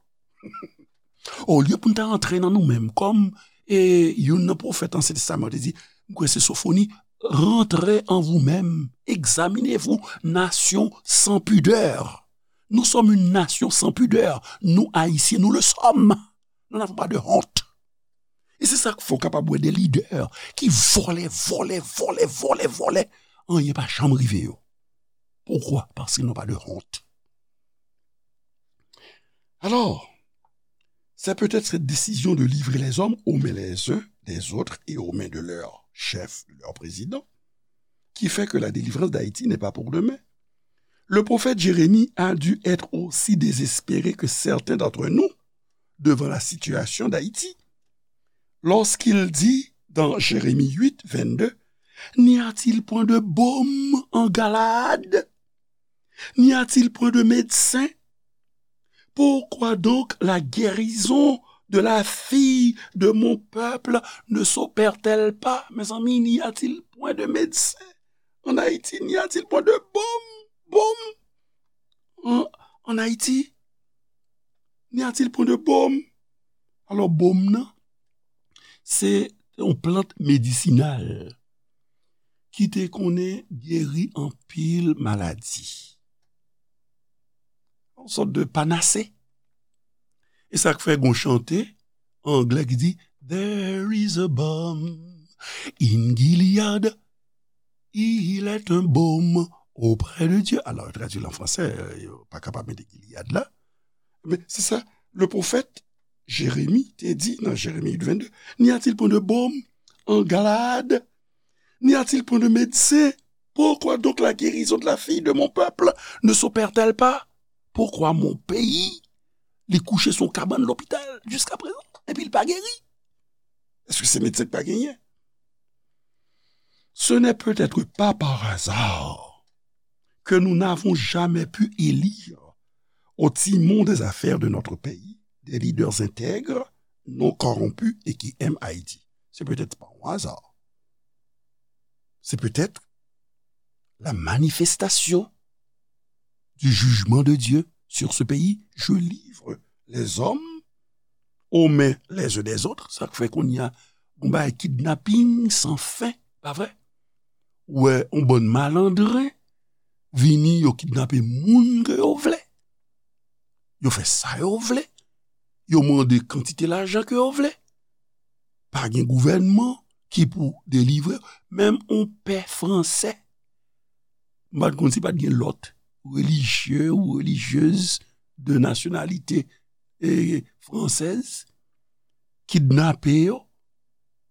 Olye pou n ta antre nan nou menm, kòm, e, youn nan pwofèt Ansyen Testaman te di, m kwè se Sofoni, rentrez en vous-même, examinez-vous, nation sans pudeur. Nous sommes une nation sans pudeur. Nous, Haïtiens, nous le sommes. Nous n'avons pas de honte. E se sa k fè w kapab wè de lidè ki vòlè, vòlè, vòlè, vòlè, vòlè. Anyen pa janm rive yo. Pourquoi? Parce qu'ils n'ont pas de honte. Alors, c'est peut-être cette décision de livrer les hommes aux mains les uns des autres et aux mains de leur chef, de leur président, qui fait que la délivrance d'Haïti n'est pas pour demain. Le prophète Jérémie a dû être aussi désespéré que certains d'entre nous devant la situation d'Haïti, lorsqu'il dit dans Jérémie huit, vingt-deux, n'y a-t-il point de baume en Galaad? N'y a-t-il point de médecin? Pourquoi donc la guérison de la fille de mon peuple ne s'opère-t-elle pas? Mes amis, n'y a-t-il point de médecin en Haïti? N'y a-t-il point de baume? Baume en, en Haïti? N'y a-t-il point de baume? Alò, baume nan, se yon plant medisinal ki te konnen geri anpil maladi. Yon sòt de panase. E sa k fè gon chante an anglè ki di, there is a balm in Gilead, il est un baume auprès de Dieu. Alò, yo tradui l an fransè, yo pa kapab mete Gilead la. Men se sa, le pwofèt Jeremi te di nan Jeremi huit, vingt-deux, n'y a-t-il point de baume en Galaad? N'y a-t-il point de médecin? Pourquoi donc la guérison de la fille de mon peuple ne s'opère-t-elle pas? Pourquoi mon pays, li kouche sou kabann lopital jiska prezan, epi l pa geri? Èske se medsen k pa genyen? Ce n'est peut-être pas par hasard que nous n'avons jamais pu élire au timon des affaires de notre pays des leaders intègres, non corrompus et qui aiment Haïti. C'est peut-être pas un hasard. C'est peut-être la manifestation du jugement de Dieu sur ce pays. Je livre les hommes aux mains les uns des autres. Sa k fè kounye a, gon bagay kidnaping san fen, pa vre? Ou wè, yon bann malandren vini, yo kidnape moun ke yo vle. Yo fè sa yo vle. yo mande kantite lajan ke yo vle. Pa gen gouvènman ki pou delivre. Menm yon pè fransè, m pa t konn si pa t gen lòt relijye ou relijyez de nasyonalite e fransèz, kidnape yo,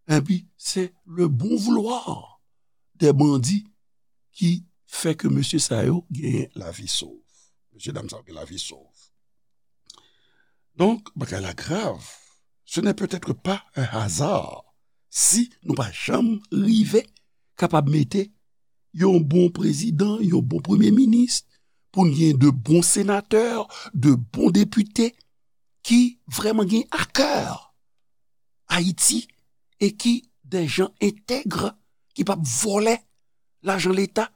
epi se le bon vouloir des bandits ki fè ke mesye sa yo genyen lavi sov. Mesye dam sa yo gen lavi sov. Donk, bagay la grav. Ce n'est peut-être pas un hasard si nou pa janm rive kapab mete yon bon prezidan, yon bon premye minis, pou n gen de bon senatè, de bon depite ki vrèman gen a kè Ayiti e ki de jan entèg, ki p ap vòlè lajan Leta,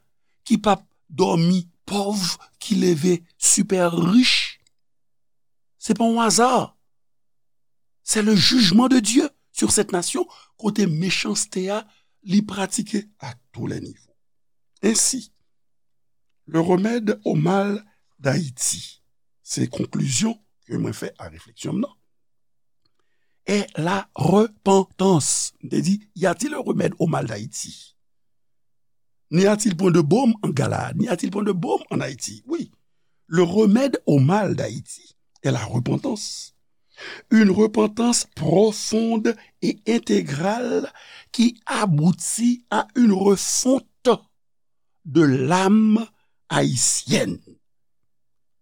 ki p ap dòmi pòv, ki leve sipè rich. Se pa yon aza. C'est le jugement de Dieu sur cette nation, kote mechanste a, li pratike à tous les niveaux. Ainsi, le remède au mal d'Haïti, se konklizyon ke mwen fè a refleksyon m nan, est la repentance. M te di, y a-t-il un remède au mal d'Haïti? N'y a-t-il point de baume en Galaad? N'y a-t-il point de baume en Haïti? Oui. Le remède au mal d'Haïti est la repentance. Une repentance profonde et intégrale qui aboutit à une refonte de l'âme haïtienne.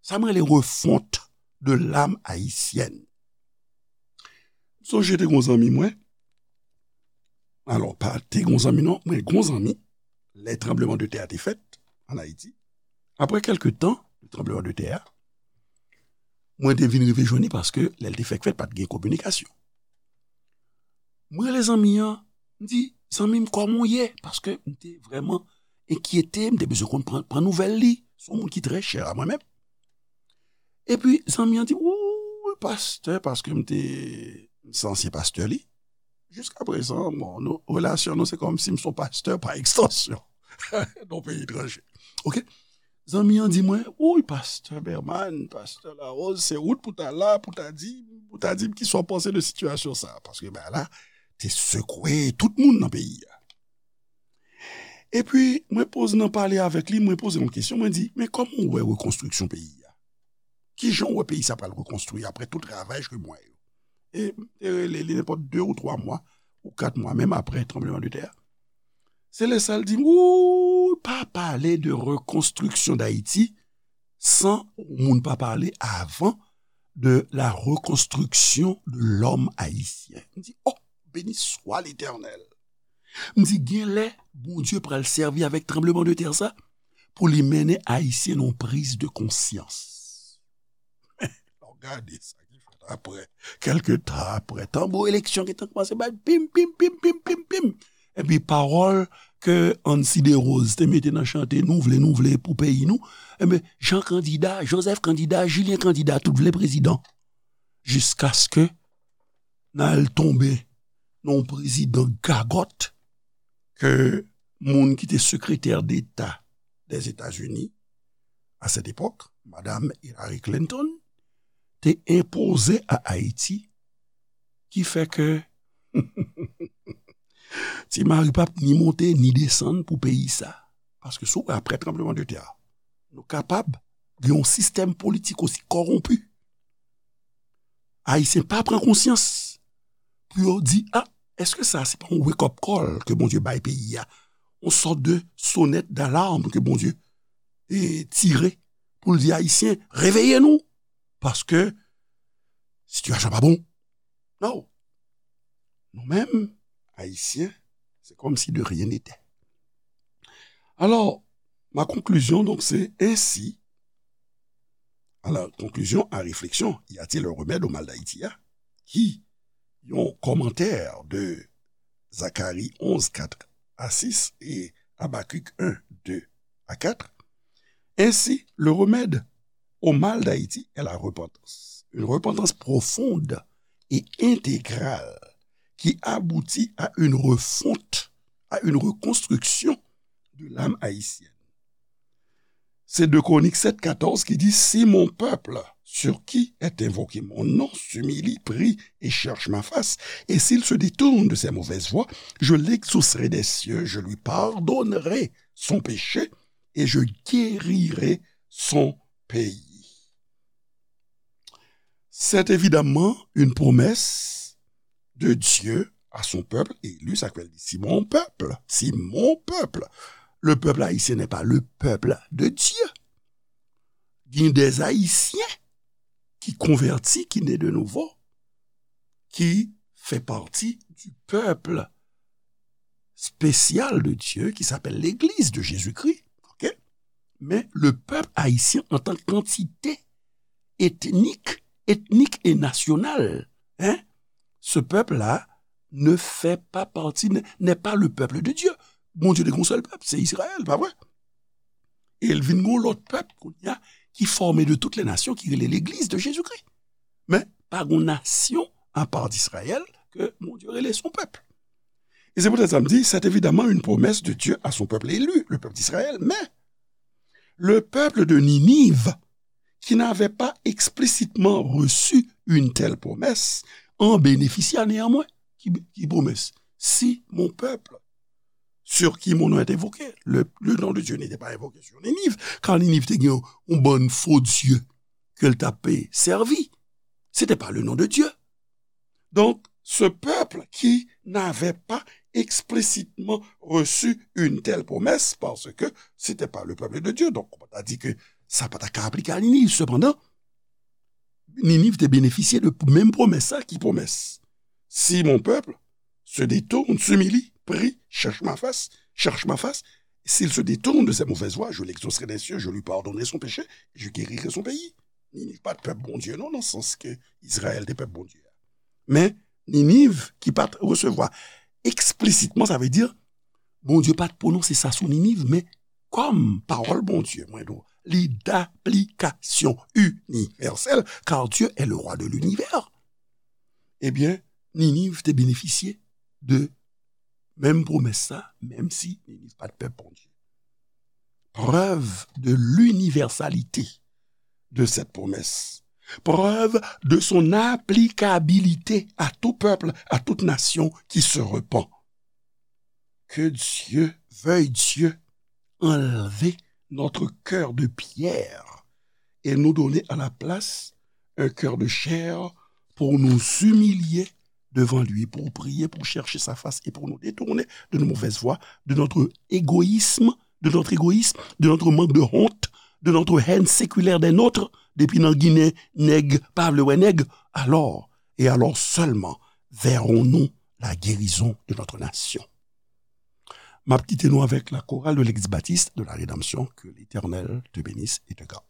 Sa m rele refonte de l'âme haïtienne. M sonje te gon zanmi mwen. Alò, pa te gon zanmi non, mwen gon zanmi. Lè tranbleman de tè a te fèt an Ayiti, apre kèlke tan de tranbleman de tè a, mwen te vin rive jwenn li paske lè l te fèk fèt, pa t gen kominikasyon. Mwen rele zanmi an, m di, "Zanmi m, kòman w ye?" Paske m te vrèman enkyete, m te bezwen konn pran, pran nouvèl li. Se yon moun ki trè chè a mwen menm. Epi, zanmi an di, "Wi, pastè," paske m te, m se ansyen pastè li. Jiska prezan, bon, nou, relasyon nou, se kòmsi m se yon pastè pa ekstansyon nan yon peyi etranje. Oke? Zanmi an di mwen, "Wi, pastè Berman, pastè Larose, se ou t pou ta la, pou ta di, pou ta di m kisa w panse de sitiyasyon sa a." Paske bagay la te sekwe tout moun nan peyi a. Epi, mwen poze nan pale avèk li, mwen poze yon kesyon, mwen di, "Men kòman w wè rekonstriksyon peyi a? Kijan w wè peyi sa pral rekonstwi apre tout ravaj ke m wè yo?" E m te rele li nenpòt de ou twa mwa, ou kat mwa, menm apre tranbleman de tè a. Se lè sa l di m, "Ou pa pale de rekonstriksyon Dayiti san moun pa pale avan de la rekonstriksyon de lòm ayisyen." M di, "Oh, beni swa Letènèl." M di, "Gen lè, Bondye pral sèvi avèk tranbleman de tè sa pou li mennen Ayisyen nan yon priz de konsyans." Lè w gade sa ki fèt apre, kèlke tan apre, tanbou eleksyon gentan kòmanse bat, pim, pim, pim, pim, pim, pim. Epi pawòl ke Ancy Desroses te mete nan chante, "Nou vle, nou vle pou peyi nou." Enben, Jan kandida, Joseph kandida, Julien kandida, tout vle prezidan. Jiskaske n al tonbe nan yon prezidan gagòt ke moun ki te sekretè deta Dèzetazini a sèt epòk, madam Hillary Clinton, te enpoze a Ayiti, ki fè ke Ti Mari p ap ni monte ni desann pou peyi sa. Paske si w wè apre tranbleman de tè a, nou kapab gen yon sistèm politik osi kòwonpi. Ayisyen pa pran konsyans pou yo di, "A, èske sa se pa yon wake up call ke Bondye bay peyi a? Yon sòt de sonèt dalam ke Bondye e tire pou l di Ayisyen, 'Reveye nou, paske sitiyasyon pa bon.'" Non. Nou menm, Ayisyen, c'est comme si de rien n'était. Alors, ma conclusion, donc, c'est ainsi. Alors, conclusion à réflexion, y a-t-il un remède au mal d'Haïti, hein? Qui, yon commentaire de Zacharie onze, quatre à six et Habacuc un, deux à quatre. Ainsi, le remède au mal d'Haïti est la repentance. Une repentance profonde et intégrale qui aboutit à une refonte, à une reconstruction de l'âme haïtienne. C'est deux Chroniques sept quatorze qui dit, "Si mon peuple sur qui est invoqué mon nom s'humilie, prie et cherche ma face, et s'il se détourne de ses mauvaises voies, je l'exaucerai des cieux, je lui pardonnerai son péché et je guérirai son pays. C'est évidemment une promesse de Dieu à son peuple élu, sa k fè l di, si mon peuple, si mon peuple, le peuple haïtien n'est pas le peuple de Dieu. Il y a des Haïtiens qui convertis, qui naît de nouveau, qui fait partie du peuple spécial de Dieu, qui s'appelle l'Église de Jésus-Christ. Ok? Mais le peuple haïtien en tant qu'entité ethnique, ethnique et nationale, hein, ce peuple-là ne fait pas partie, n'est pas le peuple de Dieu. Bondye te gen yon sèl pèp, se Izrayèl, pa vre? E l vin gen yon lòt pèp kounye a ki fòme de toutes les nations, ki rele Legliz de Jezikri. Men pa gen yon nasyon apa d Izrayèl ke Bondye rele son pèp. E se poutèt sa m di, c'est évidemment une promesse de Dieu à son peuple élu, le peuple d'Israël, mais le peuple de Ninive, qui n'avait pas explicitement reçu une telle promesse, en bénéficia néanmoins. Ki, ki pwomès? Si mon peuple, sur qui mon nom est invoqué, le, le nom de Dieu n'était pas invoqué sur Ninive, car Ninive te gen yon bann fo dye ke l t ap sèvi. C'était pas le nom de Dieu. Donc, ce peuple qui n'avait pas explicitement reçu une telle promesse, parce que c'était pas le peuple de Dieu. Donc, on a dit que sa pa ta ka aplike a Ninive. Cependant, Ninive te bénéficié de menm pwomès sa. Ki pwomès? Si mon peuple se détourne, s'humilie, prie, cherche ma face, cherche ma face, s'il se détourne de ses mauvaises voies, je l'exaucerai des cieux, je lui pardonnerai son péché, je guérirai son pays. Ninive pa t pèp Bondye, non, nan sans ke Izrayèl te pèp Bondye a. Men, Ninive ki pa t resevwa eksplisitman, sa vle di, Bondye pa t pwononse sa sou Ninive, men kòm pawòl Bondye, mwen di w, li d'application universelle, car Dieu est le roi de l'univers. Ebyen, Ninive te benefisye de menm pwomès sa, menm si Ninive pa t pèp Bondye. Preuve de l'universalité de cette promesse. Preuve de son applicabilité à tout peuple, à toute nation qui se repent. Que Dieu, veuille Dieu, enlever notre cœur de pierre et nous donner à la place un cœur de chair pour nous humilier devant lui, pour prier, pour chercher sa face et pour nous détourner de nos mauvaises voies, de notre égoïsme, de notre égoïsme, de notre manque de honte, de notre haine séculaire des nôtres, depi nan Ginen, nèg pa vle wè nèg. Alors, et alors seulement, verrons-nous la guérison de notre nation. M ap kite nou avèk la chorale de l'Église baptiste de la Rédemption. Que l'Éternel te bénisse et te garde.